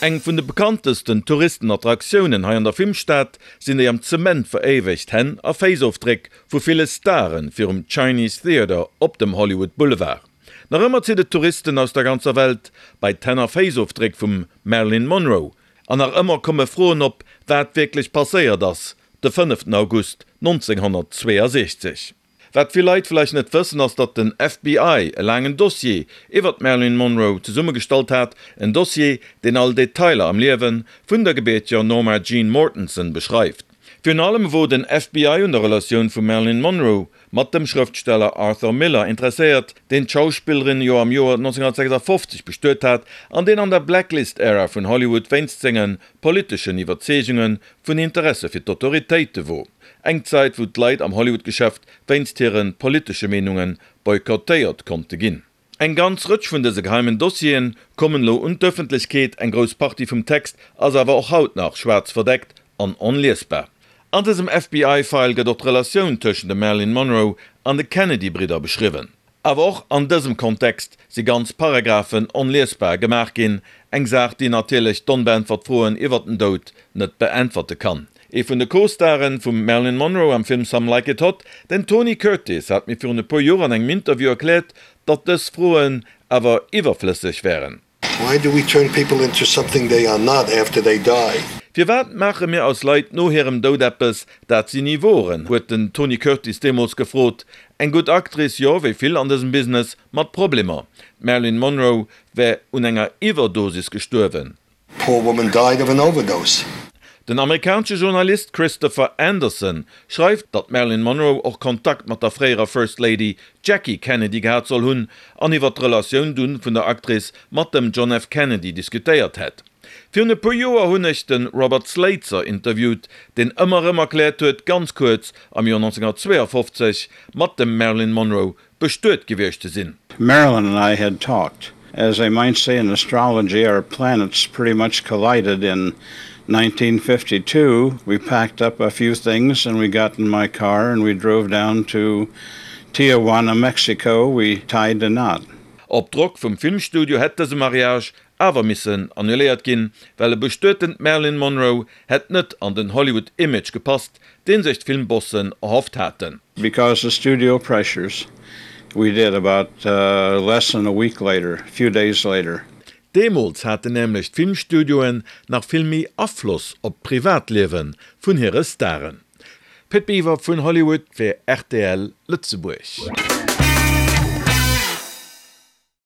Eng vun de bekanntesten Touristenattraktiounen hei an der Filmstad sinn déi am Zement veréiwegt Hänn a Féissofdréck vu ville Stare virum Chinese Theatre op dem Hollywood Boulevard. Nach ëmmer zitt et Touristen aus der ganzer Welt bei d'Hänn a Féissofdréck vum Marilyn Monroe. An nach ëmmer komme Froen op, wat wierklech passéiert ass de 5 August 1962. Wat vill Leit vläicht net wëssen, ass datt den FBI e laangen Dossier iwwer d'Marilyn Monroe zesummegestallt hat, en Dossier, deen all Detailer am Liewe vun der gebierteger Norma Jean Mortenson beschreift. Virun allem wor den FBI un der Relatioun vum Marilyn Monroe mat dem Schrëftsteller Arthur Miller interesséiert, deen d'Schauspillerin jo am Joer 1956 bestuet hat an deen an der Blacklist-Ära vun Hollywood wéinst senge politeschen Iwwerzeegunge vun Interesse fir d'Autoritéite wor. Eng Zäit, wou d'Leit am Hollywood-Geschäft wéinst hire politesche Meenunge boykottéiert konnte ginn. Eng ganz Rëtsch vun dëse geheimen Dossieren kommen elo un d'Ëffentlechkeet, eng grouss Partie vum Text ass awer och haut nach schwaarz verdeckt an onliesbar. An dësem FBI-File gëtt och d'Relatioun tëschent dem Marilyn Monroe an de Kennedy-Bridder beschriwwen. Awer och an dësem Kontext si ganz Paragraphen onliesbar gemaach ginn, eng Saach, déi natierlech d'onbeäntwert Froen iwwer den Doud net beäntwerte kann. Ee vun de Co-Staren vum Marilyn Monroe am Film Some Like It Hot, den Tony Curtis, hat mir virun e puer Joer an engem Interview erkläert, datt dës Froen awer iwwerflësseg wären. Why do we turn people into something they are not after they die? Firwat maache mir aus Leit no hirem Doud eppes, dat si ni woren? huet den Tony Curtis deemools gefrot. Eng gutt Actrice, jo, wéi vill an dësem Business mat Problemer. D'Marilyn Monroe wär un enger Iwwerdosis gestuerwen. Poor woman died of an overdose. Den amerikanesche Journalist Christopher Anderson schreift, datt d'Marilyn Monroe och Kontakt mat der fréierer First Lady Jackie Kennedy gehat soll hunn an iwwer d'Relatioun dunn vun der Actrice mat dem John F. Kennedy diskutéiert hätt. Virun e puer Joer hunn ech de Robert Slatzer interviewt, deen ëmmer erëm erkläert huet, ganz kuerz am Joer 1952 mat dem Marilyn Monroe bestuet gewiescht ze sinn. Marilyn and I had talked. As they might say in astrology, our planets pretty much collided in 1952. We packed up a few things and we got in my car and we drove down to Tijuana, Mexico. We tied the knot. Op Drock vum Filmstudio hätt dëse Mariage awer missen annuléiert ginn, well e bestuetent Marilyn Monroe hätt net an den Hollywood-Image gepasst, deen sech d'Filmbossen erhofft haten. Because of studio pressures, we did about less than a week later, a few days later. Deemools haten nämlech d'Filmstudioen nach vill méi Afloss op d'Privatliewe vun hire Staren. Pit Biwer vun Hollywood fir rtl Lëtzebuerg.